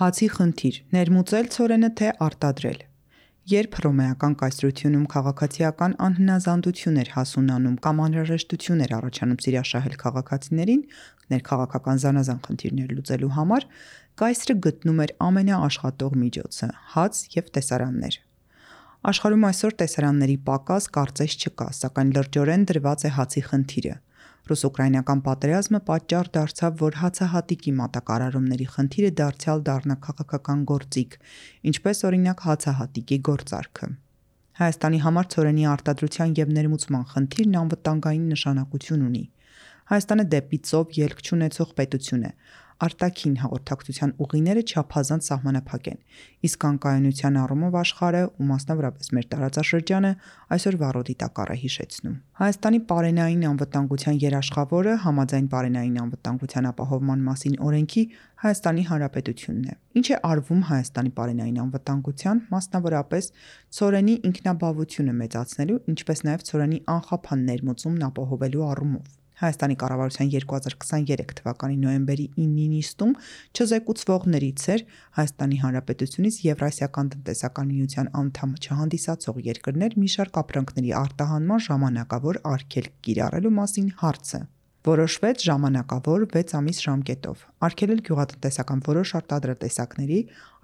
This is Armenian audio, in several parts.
Հացի խնդիր՝ ներմուծել ցորենը թե արտադրել։ Երբ հռոմեական կայսրությունում քաղաքացիական անհնազանդություն էր հասունանում կամ անհրաժեշտություն էր առաջանում սիրաշահել քաղաքացիներին ներքաղաքական զանազան խնդիրներ լուծելու համար, կայսրը գտնում էր ամենաաշխատող միջոցը՝ հաց և տեսարաններ։ Աշխարհում այսօր տեսարանների պակաս կարծես չկա, սակայն լրջորեն դրված է հացի խնդիրը։ Ռուս-ուկրաինական պատերազմը պատճառ դարձավ, որ հացահատիկի մատակարարումների խնդիրը դարձյալ դառնա քաղաքական գործիք, ինչպես օրինակ հացահատիկի գործարքը։ Հայաստանի համար ցորենի արտադրության և ներմուծման խնդիրն անվտանգային նշանակություն ունի։ Հայաստանը դեպի ծով ելք չունեցող պետություն է։ Արտաքին հաղորդակցության ուղիները չափազանց սահմանափակ են, իսկ անկայունության առումով աշխարհը ու մասնավորապես մեր տարածաշրջանը այսօր վառոդի տակառ է հիշեցնում։ Հայաստանի պարենային անվտանգության երաշխավորը համաձայն պարենային անվտանգության ապահովման մասին օրենքի Հայաստանի Հանրապետությունն է։ Ինչ է արվում Հայաստանի պարենային անվտանգության, մասնավորապես ցորենի ինքնաբավությունը մեծացնելու, ինչպես նաև ցորենի անխափան ներմուծումն ապահովելու առումով։ Հայաստանի կառավարության 2023 թվականի նոյեմբերի 9-ի նիստում չզեկուցվողներից էր Հայաստանի Հանրապետությունից Եվրասիական տնտեսական միության անդամ չհանդիսացող երկրներ մի շարք ապրանքների արտահանման ժամանակավոր արգելք կիրառելու մասին հարցը։ Որոշվեց ժամանակավոր 6 ամիս ժամկետով արգելել գյուղատնտեսական որոշ արտադրատեսակների,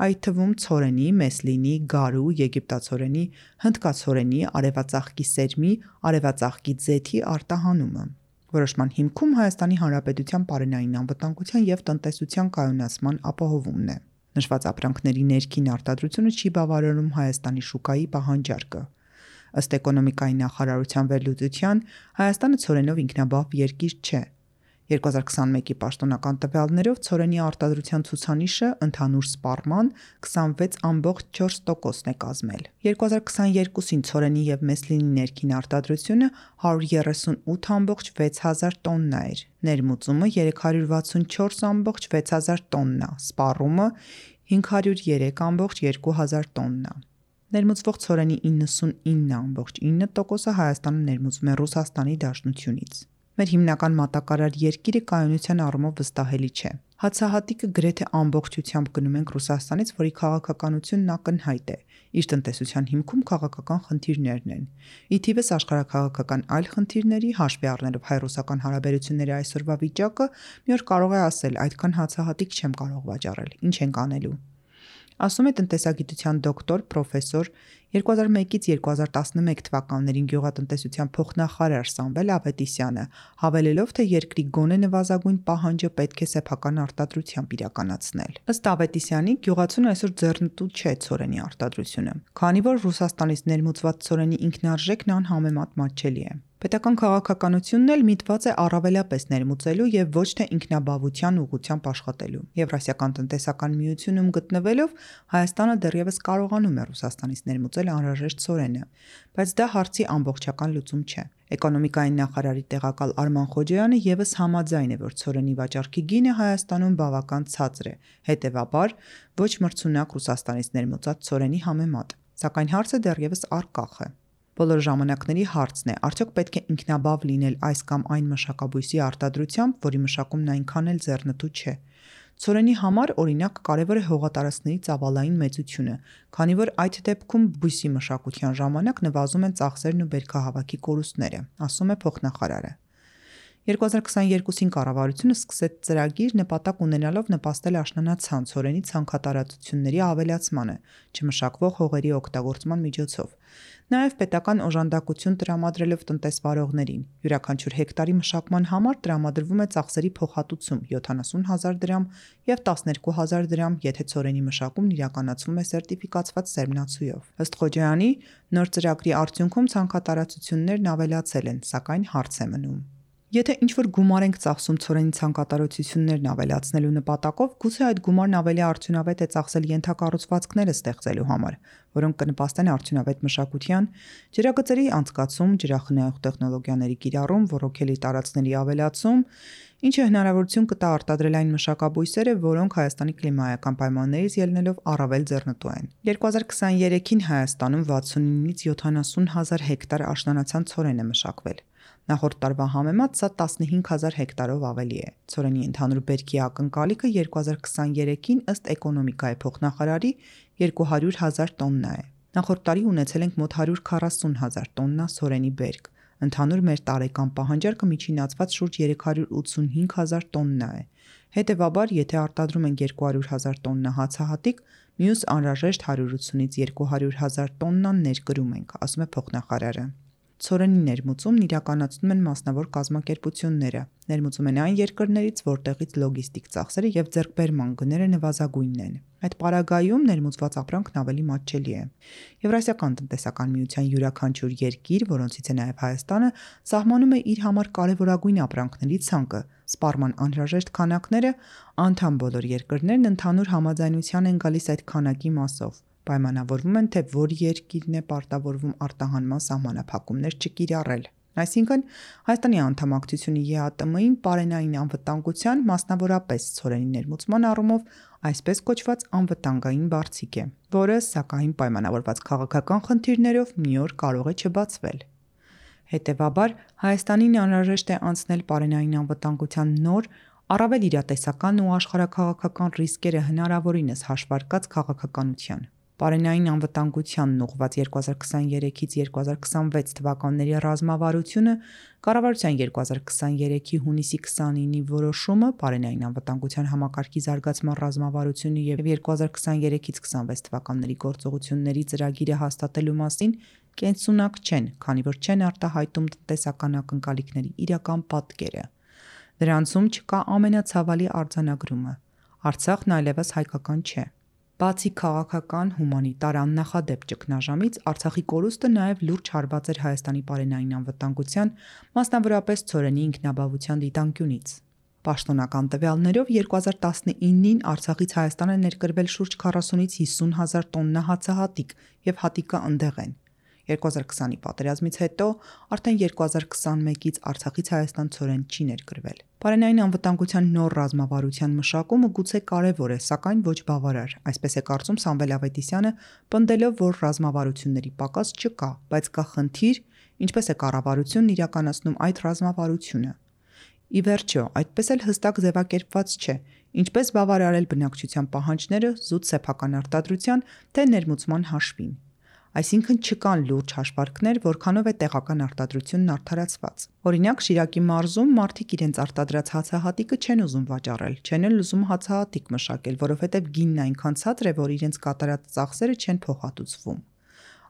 այդ թվում ցորենի, մեսլինի, գարու, եգիպտացորենի, հնդկացորենի, արևածաղկի սերմի, արևածաղկի ձեթի արտահանումը։ Որոշման հիմքում Հայաստանի Հանրապետության պարենային անվտանգության և տնտեսության կայունացման ապահովումն է։ Նշված ապրանքների ներքին արտադրությունը չի բավարարում Հայաստանի շուկայի պահանջարկը։ Ըստ էկոնոմիկայի նախարարության վերլուծության Հայաստանը ցորենով ինքնաբավ երկիր չէ։ 2021-ի պաշտոնական տվյալներով ցորենի արտադրության ցուցանիշը ընդհանուր սպառման 26.4%-ն է կազմել։ 2022-ին ցորենի և մեսլինի ներքին արտադրությունը 138.6 հազար տոննա էր, ներմուծումը 364.6 հազար տոննա, սպառումը 503.2 հազար տոննա։ Ներմուծվող ցորենի 99.9%-ը Հայաստանը ներմուծում է Ռուսաստանի Դաշնությունից։ Մեր հիմնական մատակարար երկիրը կայունության առումով վստահելի չէ։ Հացահատիկը գրեթե ամբողջությամբ գնում ենք Ռուսաստանից, որի քաղաքականությունն ակնհայտ է, իր տնտեսության հիմքում քաղաքական խնդիրներն են։ Ի թիվս աշխարհաքաղաքական այլ խնդիրների, հաշվի առնելով հայ-ռուսական հարաբերությունների այսօրվա վիճակը, մի օր կարող է ասել՝ այդքան հացահատիկ չեմ կարող վաճառել, ինչ ենք անելու։ Ասում է տնտեսագիտության դոկտոր, պրոֆեսոր 2001-ից 2011 թվականներին գյուղատնտեսության փոխնախարար Սամվել Ավետիսյանը, հավելելով, թե երկրի գոնե նվազագույն պահանջը պետք է սեփական արտադրությամբ իրականացնել։ Ըստ Ավետիսյանի, գյուղացուն այսօր ձեռնտու չէ ցորենի արտադրությունը, քանի որ Ռուսաստանից ներմուծված ցորենի ինքնարժեքն անհամեմատ մատչելի է։ Պետական քաղաքականությունն էլ միտված է առավելապես ներմուծելու եւ ոչ թե ինքնաբավության ուղղությամբ աշխատելու։ Եվրասիական տնտեսական միությունում գտնվելով Հայաստանը դեռևս կարողանում է Ռուսաստանից ներմուծել անհրաժեշտ ցորենը, բայց դա հարցի ամբողջական լուծում չէ։ Էկոնոմիկայի նախարարի տեղակալ Արման Խոջոյանը եւս համաձայն է, որ ցորենի վաճառքի գինը Հայաստանում բավական ցածր է, հետեւաբար ոչ մրցունակ Ռուսաստանից ներմուծած ցորենի համեմատ, սակայն հարցը դեռևս առկախ է։ Բոլոր ժամանակների հարցն է՝ արդյոք պետք է ինքնաբավ լինել այս կամ այն մշակաբույսի արտադրությամբ, որի մշակումն այնքան էլ ձեռնտու չէ։ Ցորենի համար, օրինակ, կարևոր է հողատարածքների ծավալային մեծությունը, քանի որ այդ դեպքում բույսի մշակության ժամանակ նվազում են ծախսերն ու բերքահավաքի կորուստները, ասում է փոխնախարարը։ 2022-ին կառավարությունը սկսեց ծրագիր նպատակ ունենալով նպաստել աշնանացան ցորենի ցանքատարածությունների ավելացմանը, չմշակվող հողերի օգտագործման միջոցով։ Նաև պետական օժանդակություն տրամադրելով տնտեսվարողներին։ Յուրաքանչյուր հեկտարի մշակման համար տրամադրվում է ծախսերի փոխհատուցում 70,000 դրամ և 12,000 դրամ, եթե ցորենի մշակումն իրականացվում է սերտիֆիկացված սերմնացուով։ Ըստ Խոջոյանի, նոր ծրագրի արդյունքում ցանքատարածություններն ավելացել են, սակայն հարց է մնում։ Եթե ինչ-որ գումար ենք ծախսում ցորենի ցանքատարածություններն ավելացնելու նպատակով, գուցե այդ գումարն ավելի արդյունավետ է ծախսել ենթակառուցվածքները ստեղծելու համար, որոնք կնպաստեն արդյունավետ մշակության, ջրագծերի անցկացում, ջրախնայող տեխնոլոգիաների կիրառում, ոռոգելի տարածքների ավելացում, ինչը հնարավորություն կտա արտադրել այն մշակաբույսերը, որոնք Հայաստանի կլիմայական պայմաններից ելնելով առավել ձեռնտու են։ 2023-ին Հայաստանում 69-ից 70 հազար հեկտար աշնանացան ցորեն է մշակվել։ Նախորդ տարվա համեմատ սա 15,000 հեկտարով ավելի է։ Ցորենի ընդհանուր բերքի ակնկալիքը 2023-ին ըստ էկոնոմիկայի փոխնախարարի 200,000 տոննա է։ Նախորդ տարի ունեցել ենք մոտ 140,000 տոննա ցորենի բերք։ Ընդհանուր մեր տարեկան պահանջարկը միջինացված շուրջ 385,000 տոննա է։ Հետևաբար, եթե արտադրում ենք 200,000 տոննա հացահատիկ, մյուս անհրաժեշտ 180-ից 200,000 տոննան ներկրում ենք, ասում է փոխնախարարը։ Ցորենի ներմուծումն իրականացնում են մասնավոր կազմակերպությունները։ Ներմուծում են այն երկրներից, որտեղից լոգիստիկ ծախսերը եւ ձեռքբերման գները նվազագույնն են։ Այդ պարագայում ներմուծված ապրանքն ավելի մատչելի է։ Եվրասիական տնտեսական միության յուրաքանչյուր երկիր, որոնցից է նաև Հայաստանը, սահմանում է իր համար կարևորագույն ապրանքների ցանկը։ Սպառման անհրաժեշտ քանակները անդամ բոլոր երկրներն ընդհանուր համաձայնության են գալիս այդ քանակի մասով։ Պայմանավորվում են, թե որ երկիրն է պարտավորվում արտահանման սահմանափակումներ չկիրառել։ Այսինքն, Հայաստանի անդամակցությունը ԵԱՏՄ-ին պարենային անվտանգության, մասնավորապես ցորենի ներմուծման առումով այսպես կոչված անվտանգային բարձիկ է, որը, սակայն պայմանավորված քաղաքական խնդիրներով մի օր կարող է չբացվել։ Հետևաբար, Հայաստանին անհրաժեշտ է անցնել պարենային անվտանգության նոր, առավել իրատեսական ու աշխարհաքաղաքական ռիսկերը հնարավորինս հաշվարկած քաղաքականության։ Պարենային անվտանգությանն ուղղված 2023-ից 2026 թվականների ռազմավարությունը, կառավարության 2023-ի հունիսի 29-ի որոշումը, պարենային անվտանգության համակարգի զարգացման ռազմավարությունը եւ 2023-ից 26 թվականների գործողությունների ծրագիրը հաստատելու մասին կենսունակ չեն, քանի որ չեն արտահայտում տնտեսական ակնկալիքների իրական պատկերը։ Դրանցում չկա ամենացավալի արձանագրումը։ Արցախն այլևս հայկական չէ։ Բացի քաղաքական, հումանիտար աննախադեպ ճգնաժամից, Արցախի կորուստը նաև լուրջ հարված էր Հայաստանի պարենային անվտանգության, մասնավորապես ցորենի ինքնաբավության դիտանկյունից։ Պաշտոնական տվյալներով 2019-ին Արցախից Հայաստան է ներկրվել շուրջ 40-ից 50,000 տոննա հացահատիկ եւ հատիկը ընդեղ են։ 2020-ի պատերազմից հետո արդեն 2021-ից Արցախից Հայաստան ցորեն չի ներկրվել։ Պարենային անվտանգության նոր ռազմավարության մշակումը գուցե կարևոր է, սակայն ոչ բավարար, այսպես է կարծում Սամվել Ավետիսյանը, պնդելով, որ ռազմավարությունների պակաս չկա, բայց կա խնդիր, ինչպես է կառավարությունն իրականացնում այդ ռազմավարությունը։ Ի վերջո, այդպես էլ հստակ ձևակերպված չէ, ինչպես բավարարել բնակչության պահանջները զուտ սեփական արտադրության, թե ներմուծման հաշվին։ Այսինքն չկան լուրջ հաշվարկներ, որքանով է տեղական արտադրությունն արդարացված։ Օրինակ, Շիրակի մարզում մարդիկ իրենց արտադրած հացահատիկը չեն ուզում վաճառել, չեն էլ ուզում հացահատիկ մշակել, որովհետև գինն այնքան ցածր է, որ իրենց կատարած ծախսերը չեն փոխհատուցվում։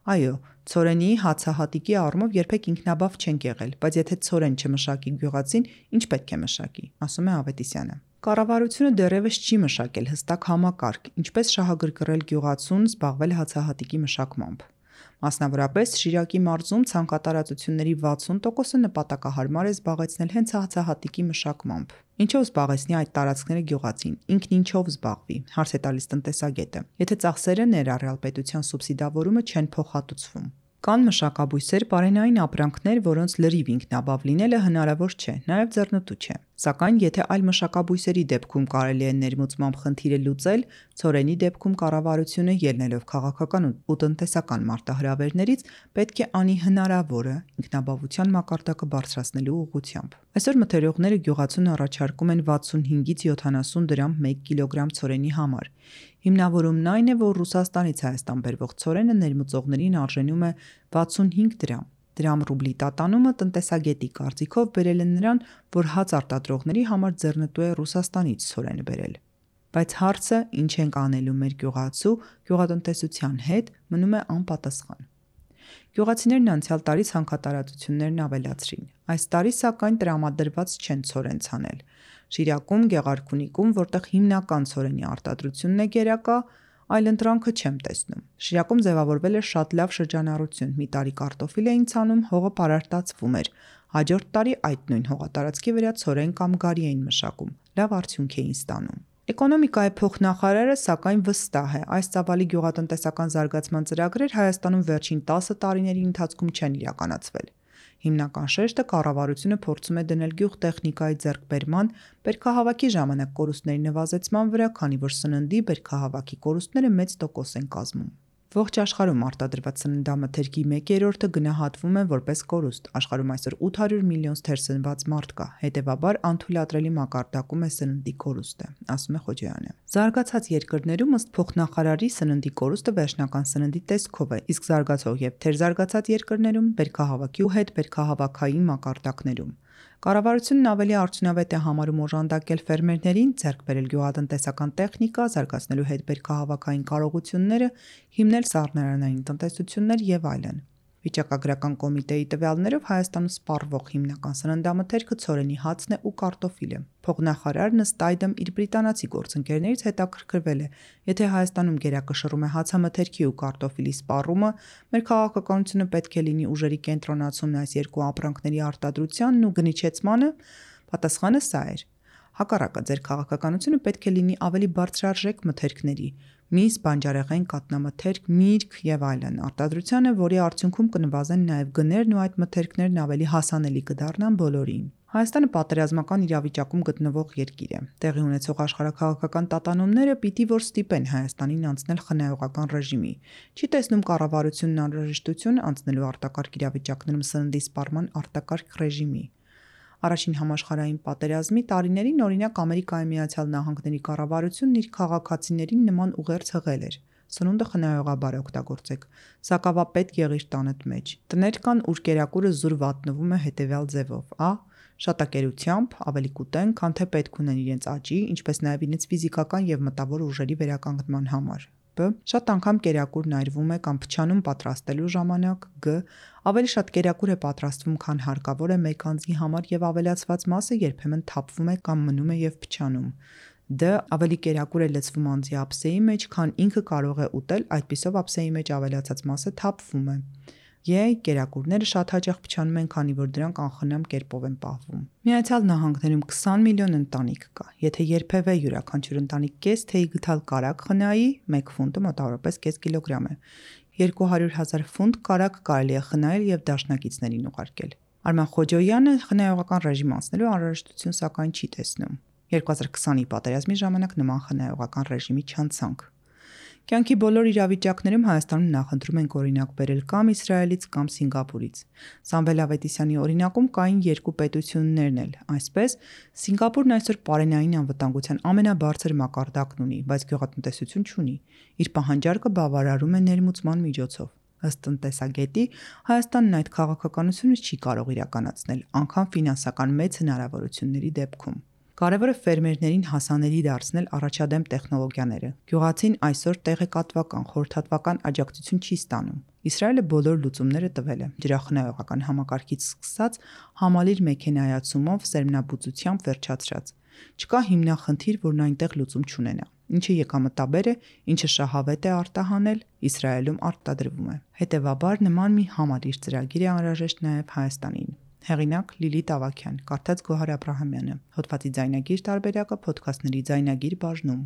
Այո, ցորենի հացահատիկի առումով երբեք ինքնաբավ չենք եղել, բայց եթե ցորեն չմշակի գյուղացին, ինչ պետք է մշակի, ասում է Ավետիսյանը։ Կառավարությունը դեռևս չի մշակել հստակ համակարգ, ինչպես շահագրգռել գյուղացուն զբաղվել հացահատիկի մշակմամբ։ Մասնավորապես Շիրակի մարզում ցանկատարածությունների 60%-ը նպատակահարմար է զբաղեցնել հենց հացահատիկի մշակմամբ։ Ինչով զբաղեցնի այդ տարածքները գյուղացին, ինքն ինչով զբաղվի, հարց է տալիս տնտեսագետը, եթե ծախսերը ներառյալ պետության սուբսիդավորումը չեն փոխհատուցվում։ Կան մշակաբույսեր, պարենային ապրանքներ, որոնց լրիվ ինքնաբավ լինելը հնարավոր չէ, նաև ձեռնտու չէ։ Սակայն եթե այլ մշակաբույսերի դեպքում կարելի է ներմուծմամբ խնդիրը լուծել, ցորենի դեպքում կառավարությունը ելնելով քաղաքական ու տնտեսական մարտահրավերներից պետք է անի հնարավորը ինքնաբավության մակարդակը բարձրացնելու ուղղությամբ։ Այսօր մթերողները գյուղացուն առաջարկում են 65-ից 70 դրամ 1 կիլոգրամ ցորենի համար։ Հիմնավորումն այն է, որ Ռուսաստանից Հայաստան բերվող ցորենը ներմուծողներին արժենում է 65 դրամ։ Դրամ ռուբլի տատանումը տնտեսագետի կարծիքով բերել է նրան, որ հաց արտադրողների համար ձեռնտու է Ռուսաստանից ցորենը բերել։ Բայց հարցը, ինչ ենք անելու մեր գյուղատնտեսության հետ, մնում է անպատասխան։ Գյուղացիներն անցյալ տարի ցանկատարածություններն ավելացրին։ Այս տարի սակայն տրամադրված չեն ցորեն ցանել։ Շիրակում, Գեղարքունիքում, որտեղ հիմնական ցորենի արտադրությունն է գերակա, այլ ընտրանքը չեմ տեսնում։ Շիրակում ձևավորվել է շատ լավ շրջանառություն։ Մի տարի կարտոֆիլ էին ցանում, հողը պարարտացվում էր։ Հաջորդ տարի այդ նույն հողատարածքի վրա ցորեն կամ գարի էին մշակում։ Լավ արդյունք էին ստանում։ Էկոնոմիկայի փոխնախարարը սակայն վստահ է, այս ծավալի գյուղատնտեսական զարգացման ծրագրեր Հայաստանում վերջին 10 տարիների ընթացքում չեն իրականացվել։ Հիմնական շեշտը կառավարությունը փորձում է դնել գյուղտեխնիկայի ձեռքբերման, բերքահավաքի ժամանակ կորուստների նվազեցման վրա, քանի որ սննդի բերքահավաքի կորուստները մեծ տոկոս են կազմում։ Ողջ աշխարհում արտադրված սննդամթերքի 1/3-ը գնահատվում է որպես կորուստ։ Աշխարհում այսօր 800 միլիոն թերսնված մարդ կա, հետևաբար անթույլատրելի մակարդակում է սննդի կորուստը, ասում է Խոջոյանը։ Զարգացած երկրներում ըստ փոխնախարարի սննդի կորուստը վերջնական սննդի տեսքով է, իսկ զարգացող եւ թերզարգացած երկրներում բերքահավաքի ու հետբերքահավաքային մակարդակներում։ Կառավարությունն ավելի արդյունավետ է համարում օժանդակել ֆերմերներին, ձեռք բերել գյուղատնտեսական տեխնիկա, զարգացնելու հետբերքահավաքային կարողությունները, հիմնել սառնարանային տնտեսություններ եւ այլն։ Վիճակագրական կոմիտեի տվյալներով Հայաստանում սպառվող հիմնական սննդամթերքը ցորենի հացն է ու կարտոֆիլը։ Փոխնախարարն ըստ այդմ իր բրիտանացի գործընկերներից հետաքրքրվել է, եթե Հայաստանում գերակշռում է հացամթերքի ու կարտոֆիլի սպառումը, մեր քաղաքականությունը պետք է լինի ուժերի կենտրոնացումն այս երկու ապրանքների արտադրությանն ու գնիչեցմանը, պատասխանը սա էր։ Հակառակը, ձեր քաղաքականությունը պետք է լինի ավելի բարձրարժեք մթերքների՝ միս, բանջարեղեն, կաթնամթերք, միրգ եւ այլն արտադրությանը, որի արդյունքում կնվազեն նաեւ գներն ու այդ մթերքներն ավելի հասանելի կդառնան բոլորին։ Հայաստանը պատերազմական իրավիճակում գտնվող երկիր է։ Տեղի ունեցող աշխարհաքաղաքական տատանումները պիտի որ ստիպեն Հայաստանին անցնել խնայողական ռեժիմի։ Չի տեսնում կառավարությունն անհրաժեշտություն անցնելու արտակարգ իրավիճակներում սննդի սպառման արտակարգ ռեժիմի։ Առաջին համաշխարհային պատերազմի տարիներին օրինակ Ամերիկայի Միացյալ Նահանգների կառավարությունն իր քաղաքացիներին նման ուղերձ հղել էր. Սնունդը խնայողաբար օգտագործեք, սակավապետ եղիր տանդ մեջ։ Տներ կան, ուր կերակուրը զուր վատնվում է հետևյալ ձևով. Ա. Շատակերությամբ ավելի կուտեն, քան թե պետք ունեն իրենց աճի, ինչպես նաև իրենց ֆիզիկական եւ մտավոր ուժերի վերականգնման համար։ Բ. Շատ անգամ կերակուրն այրվում է կամ փչանում պատրաստելու ժամանակ։ Գ. Ավելի շատ կերակուր է պատրաստվում, քան հարկավոր է մեկ անձի համար եւ ավելացված մասը երբեմն թափվում է կամ մնում է եւ փչանում։ Դ. Ավելի կերակուր է լցվում անձի ափսեի մեջ, քան ինքը կարող է ուտել, այդպիսով ափսեի մեջ ավելացած մասը թափվում է։ Կերակուրները շատ հաճախ փչանում են, քանի որ դրանք անխնամ կերպով են պահվում։ Միացյալ Նահանգներում 20 միլիոն ընտանիք կա։ Եթե երբևէ յուրաքանչյուր ընտանիք կես թեյ գտալ կարագ խնայի, 1 ֆունտը մոտավորապես կես կիլոգրամ է։ 200,000 ֆունտ կարագ կարելի է խնայել եւ դաշնակիցներին ուղարկել։ Արման Խոջոյանը խնայողական ռեժիմ անցնելու անհրաժեշտություն սակայն չի տեսնում։ 2020-ի պատերազմի ժամանակ նման խնայողական ռեժիմի չանցանք։ Կյանքի բոլոր իրավիճակներում Հայաստանում նախընտրում ենք օրինակ բերել կամ Իսրայելից կամ Սինգապուրից։ Սամվել Ավետիսյանի օրինակում կային երկու պետություններն էլ։ Այսպես, Սինգապուրն այսօր պարենային անվտանգության ամենաբարձր մակարդակն ունի, բայց գյուղատնտեսություն չունի։ Իր պահանջարկը բավարարում է ներմուծման միջոցով։ Ըստ տնտեսագետի, Հայաստանն այդ քաղաքականությունը չի կարող իրականացնել, անգամ ֆինանսական մեծ հնարավորությունների դեպքում։ Կարևորը ֆերմերներին հասանելի դարձնել առաջադեմ տեխնոլոգիաները։ Գյուղացին այսօր տեղեկատվական, խորհրդատվական աջակցություն չի ստանում։ Իսրայելը բոլոր լուծումները տվել է՝ ջրախնայողական համակարգից սկսած համալիր մեքենայացումով, սերմնաբուծությամբ վերջացրած։ Չկա հիմնախնդիր, որն այնտեղ լուծում չունենա։ Ինչը եկամտաբեր է, ինչը շահավետ է արտահանել, Իսրայելում արտադրվում է։ Հետևաբար նման մի համալիր ծրագիր է անհրաժեշտ նաև Հայաստանին։ Հեղինակ Լիլիթ Ավագյան, կարդաց Գոհար Աբրահամյանը, հոդվածի ձայնագիր տարբերակը Փոդքասթների ձայնագիր բաժնում։